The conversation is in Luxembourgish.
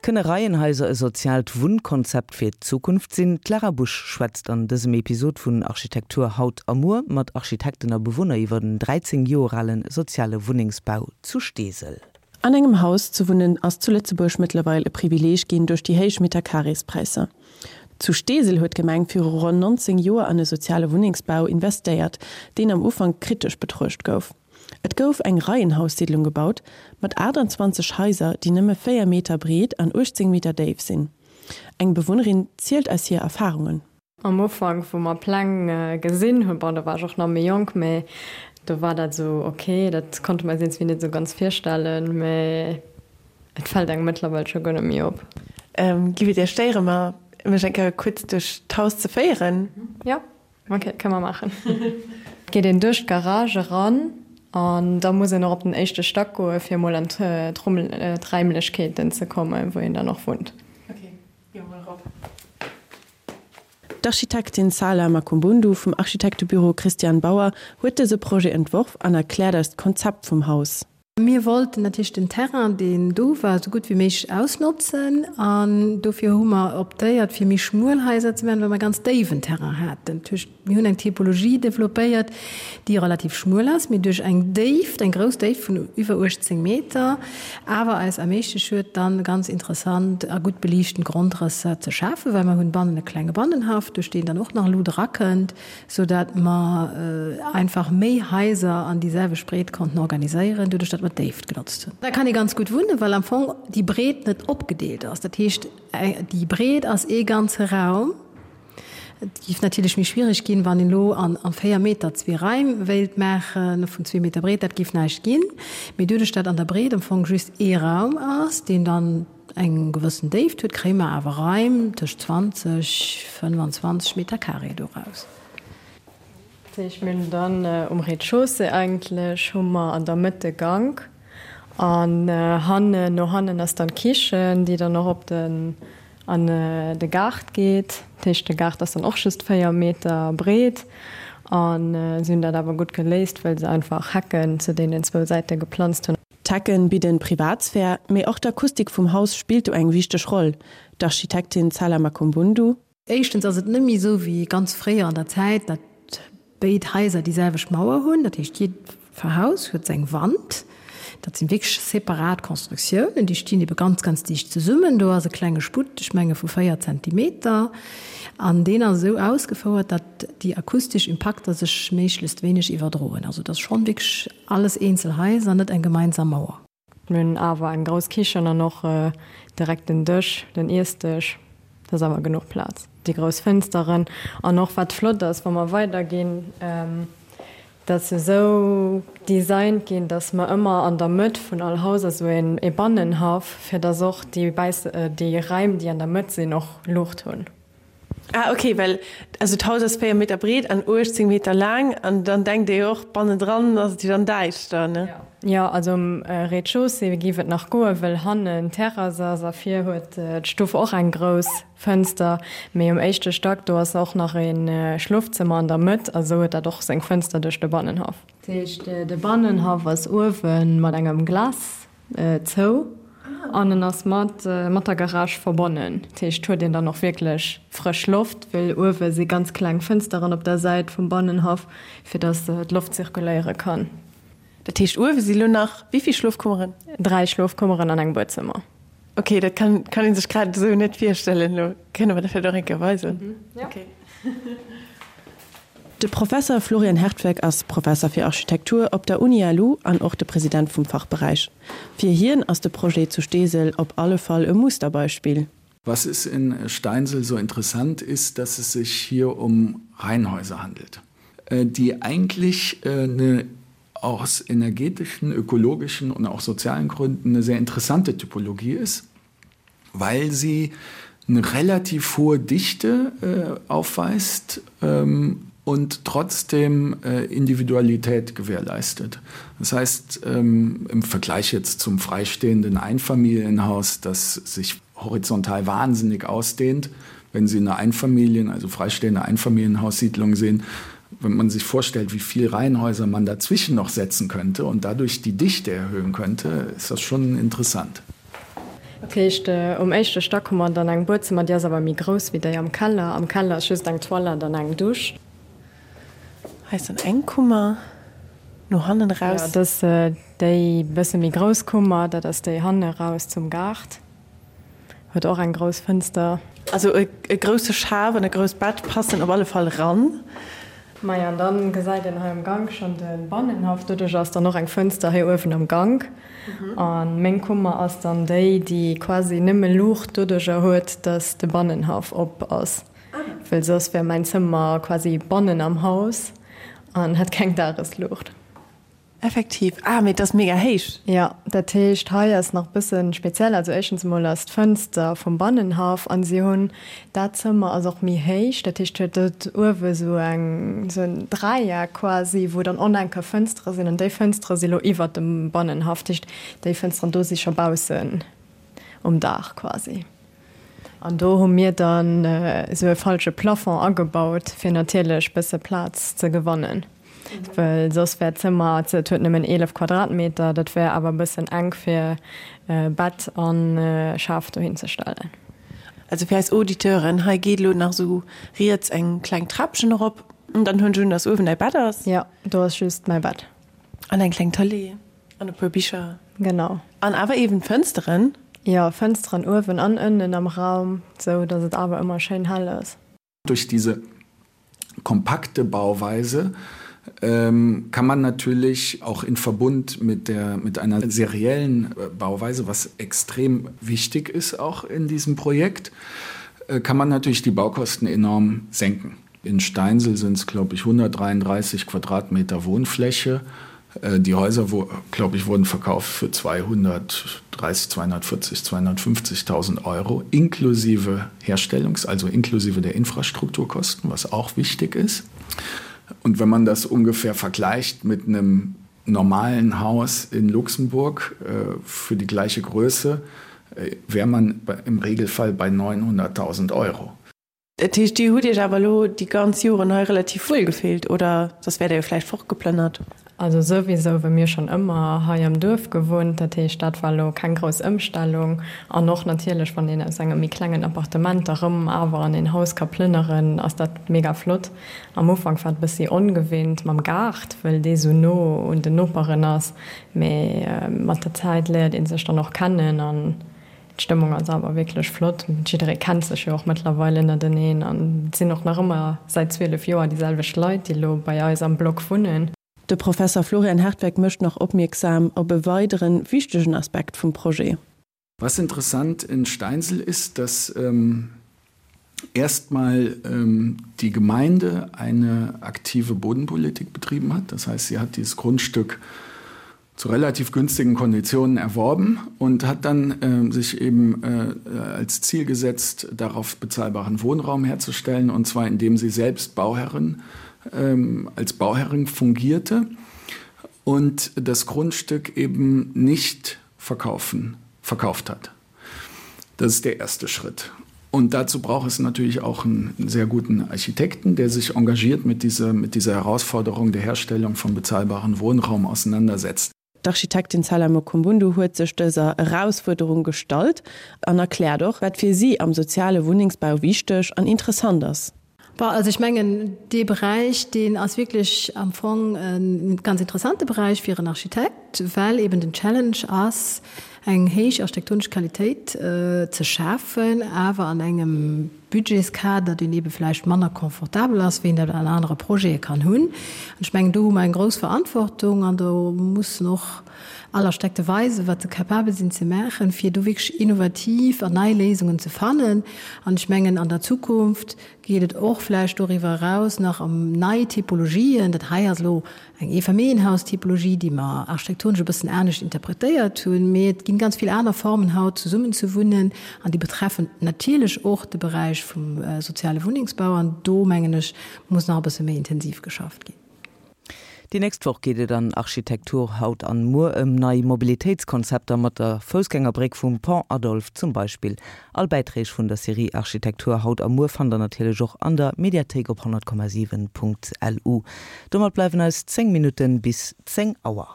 Kënne Reienhaiser e soziaalt Wunnkonzept fir d'Zukunft sinn? D'Lara Busch schwätzt an dësem Episod vun Architektur haut a muer mat Architekten a Bewunner iwwer en 13 Joer ale soziale Wunnengsbau zu Steesel. An engem Haus ze wunnen ass zu Lëtzebuerg mëttlerweil e Privileeg ginn duerch déi héich Meterkareespräisser. Zu Steesel huet d'Gemeng viru ronn 19 Joer an e soziale Wunnengsbau investéiert, deen am Ufank kritesch betruecht gouf. Et gouf eng Reienhaussiedlung gebaut, mat 28 Haiser, déi nëmme 4 Meter breet an 18 Meter déif sinn. Eng Bewunnerin zielt eis hir Erfarungen. Am Ufank, wou mer Pläng gesinn hunn, bon, do war ech och nach méi jonk, mä do war dat esou ok, dat konnte mer eis iergendwéi net esou ganz virstellen, mä et fält engem mëttlerweil scho guer net méi op. Giff et Iech stéieren, mer mech eng Kéier kuerz duerch d'Haus ze féieren? Jo, ok, kënne mer maachen. Et geet een duerch d'Garage eran an da muss een och op den éischte Stack goe fir emol an d'Raimlechkeeten ze kommen, wou een dann och wunnt. Ok, gi mer mol erop. D'Architektin Sala Makumbundu vum Architektebüro Christian Bauer huet dëse Projet entworf an erkläert eis d'Konzept vum Haus. Mir wollten natierlech den Terrain, deen do war, esou gutt wéi méiglech ausnotzen an dofir hu mer optéiert, fir méi schmuel Haiser ze maachen, well mer e ganz déiwen Terrain haten. Dat heescht, mir hunn eng Typologie developpéiert, déi relativ schmuel ass, mee duerch eng Déift, eng grouss Déift vun iwwer 18 Meter, awer eis erméiglecht huet, dann ganz interessant a gutt beliichten Grondrësser ze schafen, well mer hunn bannen e klenge Bannenhaff, duerch deen dann och nach Luut erakënnt, sou dat mer einfach méi Haiser an déi selwecht Breet konnten organiséieren, doduerch dat mer d'Déift genotzt hunn. Da kann ee ganz gutt wunnen, well am Fong déi Breet net opgedeelt ass. Dat heescht, déi Breet ass ee ganze Raum. Et géif natierlech méi schwiereg ginn, wann een elo an 4 Meter zwee Raim wéilt maache vun zwee Meter Breet. Dat géif näischt ginn. Mee doduerch dat an der Breet am Fong just ee Raum ass, deen dann eng gewëssen Déift huet, kréie mer awer Raim tëscht 20, 25 Meter carré doraus. Dat heescht, mir hunn dann um Rez-de-chaussée eigentlech hu mer an der Mëtt de Gank an hannen, no hannen ass dann d'Kichen, déi dann och op den, an de Gaart geet. Dat heescht, de Gaart ass dann och just 4 Meter breet a si hunn dat awer gutt geléist, well se einfach Hecken zu deenen zwou Säite geplanzt hunn. D'Hecken bidden Privatsphär, mee och d'Akustik vum Haus spillt do eng wichteg Roll. D'Architektin Tsala Makumbundu. Éischtens ass et net méi esou wéi ganz fréier an der Zäit, datt béid Haiser déi selwecht Mauer hunn. Dat heescht, jiddwer Haus huet seng Wand. Dat sinn wierklech separat Constructiounen, déi stinn ebe ganz, ganz dicht zesummen. Do ass e klenge Sputt, ech menge vu 4 Zentimeter, an deen ass esou ausgefouert, datt déi akustesch Impakter sech méiglechst wéineg iwwerdroen. Also et ass schonn wierklech Alles eenzel Haiser, net eng gemeinsam Mauer. Mir hunn awer eng grouss Kichen an och direkt den Dësch, den Iessdësch. Do ass awer genuch Plaz. Déi grouss Fënsteren an och wat flott ass, wa mer weiderginn, dat se esou designt ginn, datt mer ëmmer an der Mëtt vun all Haus ass esou ee Bannenhaff, fir datt och déi Raim, déi an der Mëtt sinn, och Luucht hunn. Ah ok, well also d'Haus ass 4 Meter breet an 18 Meter laang an dann denkt ee jo och, bannendran ass et jo dann däischter, ne? Jo, also um Rez-de-chaussée géif et nach goen, wëll hannen d'Terrass ass a vir huet d'Stuff och eng grouss Fënster. Mee um éischte Stack, do ass och nach e Schlofzëmmer an der Mëtt a sou huet dat och seng Fënster duerch de Bannenhaff. Dat heescht, de Bannenhaff ass uewe mat engem Glas Zou an en ass mat mat der Garage verbonnen. Dat heescht huet een dann och wierklech frësch Loft, well uewe si ganz kleng Fënsteren op der Säit vum Bannenhaff, fir datt d'Loft zirkuléiere kann. Dat heescht uewe si lo nach wéi vill Schlofkummeren? 3 Schlofkummeren an eng Buedzëmmer. Ok, dat kann kann ee sech grad esou net virstellen. Lo kënne mer dat vläicht och eng Kéier weisen. Jo. De Professer Florian Hertweck ass Professer fir Architektur op der Uni-LU an och de President vum Fachberäich. Fir hien ass de Projet zu Steesel op alle Fall e Musterbeispill. Was es in Steinsel so interessant ist, dass es sich hier um Reihenhäuser handelt, die eigentlich eine aus energetischen, ökologischen und auch sozialen Gründen eine sehr interessante Typologie ist, weil sie eine relativ hohe Dichte äh, aufweist ähm, und trotzdem äh, Individualität gewährleistet. Das heißt ähm, im Vergleich jetzt zum freistehenden Einfamilienhaus, das sich horizontal wahnsinnig ausdehnt, wenn Sie eine Einfamilien, also freistehende Einfamilienhaussiedlung sehen, wenn man sich vorstellt, wie viel Reihenhäuser man dazwischen noch setzen könnte und dadurch die Dichte erhöhen könnte, ist das schon interessant. Dat heescht, um éischte Stack hu mer dann eng Buedzëmmer, déi ass awer méi grouss wéi déi am Keller. Am Keller ass just eng Toilette an eng Dusch. Hei ass dann eng Kummer no hannen eraus. Jo, dat ass déi bësse méi grouss Kummer, dat ass déi hanne raus zum Gaart. Huet och eng grouss Fënster. Also e grousse Schaf an e grousst Bett passen op alle Fall ran. Maja, an dann gesäit een hei am Gank schon de Bannenhaff. Doduerch ass dann och eng Fënster hei uewen am Gank. An meng Kummer ass dann déi, déi quasi nëmme Luucht doduercher huet, dass de Bannenhaff op ass. Well soss wär mäin Zëmmer quasi bannen am Haus an hätt keng Dagesluucht. Effektiv. Ah, mee et ass mega héich. Jo, dat heescht hei ass nach bëssen speziell. Also éischtens emol ass d'Fënster vum Bannenhaff an si hunn dat Zëmmer ass och méi héich, dat heescht huet et uewe sou eng sou en Dräieck quasi, wou dann och nach eng Kéier Fënstere sinn an déi Fënstere si lo iwwert dem Bannenhaff. Dat heescht déi Fënsteren do si scho baussen um Daach quasi. An do hu mir dann esou e falsche Plafond agebaut, fir natierlech bësse Plaz ze gewannen, well soss wär d'Zëmmer, et huet nëmmen 11 Quadratmeter, dat wär awer e bëssen enk fir Bett a Schaf dohin ze stellen. Also fir eis Auditeuren, hei geet elo nach esou riets eng kleng Trapchen erop an dann hunn ech un, dass uewen däi Bett ass. Jo, do ass just mäi Bett. An eng kleng Tëlee. An e puer Bicher. Genau. An awer eben Fënsteren. Jo, Fënsteren uewen an ënnen am Raum, sou dass et awer ëmmer schéin hell ass. Durch diese kompakte Bauweise ähm, kann man natürlich auch in Verbund mit, der, mit einer seriellen äh, Bauweise, was extrem wichtig ist auch in diesem Projekt, äh, kann man natürlich die Baukosten enorm senken. In Steinsel sind es glaube ich 133 Quadratmeter Wohnfläche. Äh, die Häuser glaube ich wurden verkauft für 230 240 250.000 Euro inklusive Herstellungs also inklusive der Infrastrukturkosten, was auch wichtig ist. Und wenn man das ungefähr vergleicht mit einem normalen Haus in Luxemburg äh, für die gleiche Größe, äh, wäre man im Regelfall bei 900.000 Euro. Dat heescht, Dir hutt Iech awer elo déi ganz Joren hei relativ wuel gefillt, oder soss wäert Der jo vläicht fortgeplënnert? Also souwisou, well mir schonn ëmmer hei am Duerf gewunnt, dat heescht, dat war elo keng grouss Ëmstellung. An och natierlech, wann een aus engem méi klengen Appartement da rëm awer an een Haus ka plënneren, ass dat mega flott. Am Ufank war et e bëssi ongewinnt mam Gaart, well dee sou no un den Noperen ass, mee mat der Zäit léiert ee sech dann och kennen an D'Stëmmung ass awer wierklech flott. Jidderee kennt sech jo och mëttlerweil ënnerteneen an et sinn och nach ëmmer säit 12 Joer déi selwecht Leit, déi elo bei eis am Block wunnen. De Professer Florian Hertweck mécht nach opmierksam op e weideren wichtegen Aspekt vum Projet. Was interessant in Steinsel ist, dass ähm, erstmal ähm, die Gemeinde eine aktive Bodenpolitik betrieben hat. Das heißt, sie hat dieses Grundstück zu relativ günstigen Konditionen erworben und hat dann äh, sich eben äh, als Ziel gesetzt, darauf bezahlbaren Wohnraum herzustellen und zwar indem sie selbst Bauherrin ähm, als Bauherrin fungierte und das Grundstück eben nicht verkaufen verkauft hat. Das ist der erste Schritt. Und dazu braucht es natürlich auch einen sehr guten Architekten, der sich engagiert mit dieser, mit dieser Herausforderung der Herstellung von bezahlbaren Wohnraum auseinandersetzt. D'Architektin Sala Mokumbundu huet sech dëser Erausfuerderung gestallt an erkläert och, wat fir si am soziale Wunnengsbau wichteg an interessant ass. Bon, also ech mengen, dee Beräich, deen ass wierklech am Fong e ganz interessante Beräich fir en Architekt, well eben den Challenge ass, eng héich architektonesch Qualitéit ze schafen, awer an engem Budgetskader, deen ebe vläicht manner confortabel ass, wéi een dat an anere Projete kann hunn. An ech mengen, do hu mer eng grouss Verantwortung an do mussen och all Architekte weisen, wat se capabel sinn ze maachen, fir do wierklech innovativ an nei Léisungen ze fannen. An ech mengen, an der Zukunft geet et och vläicht doriwwer eraus nach ëm nei Typologien. Dat hei ass elo eng Eefamilljenhaustypologie, déi mer architektonesch e bëssen anescht interpretéiert hunn. Mee et ginn ganz vill aner Formen haut zesummen ze wunnen an déi betreffen natierlech och de Beräich vum soziale Wunnengsbau. An do, mengen ech, muss nach e bësse méi intensiv geschafft ginn. Déi nächst Woch geet et an Architektur haut an muer ëm nei Mobilitéitskonzepter mat der Foussgängerbréck vum Pont Adolphe zum Beispill. All Bäiträg vun der Serie Architektur haut a muer fannt der natierlech och an der Mediathéik op 100,7.lu. Domat bleiwen eis 10 Minutten bis 10 Auer.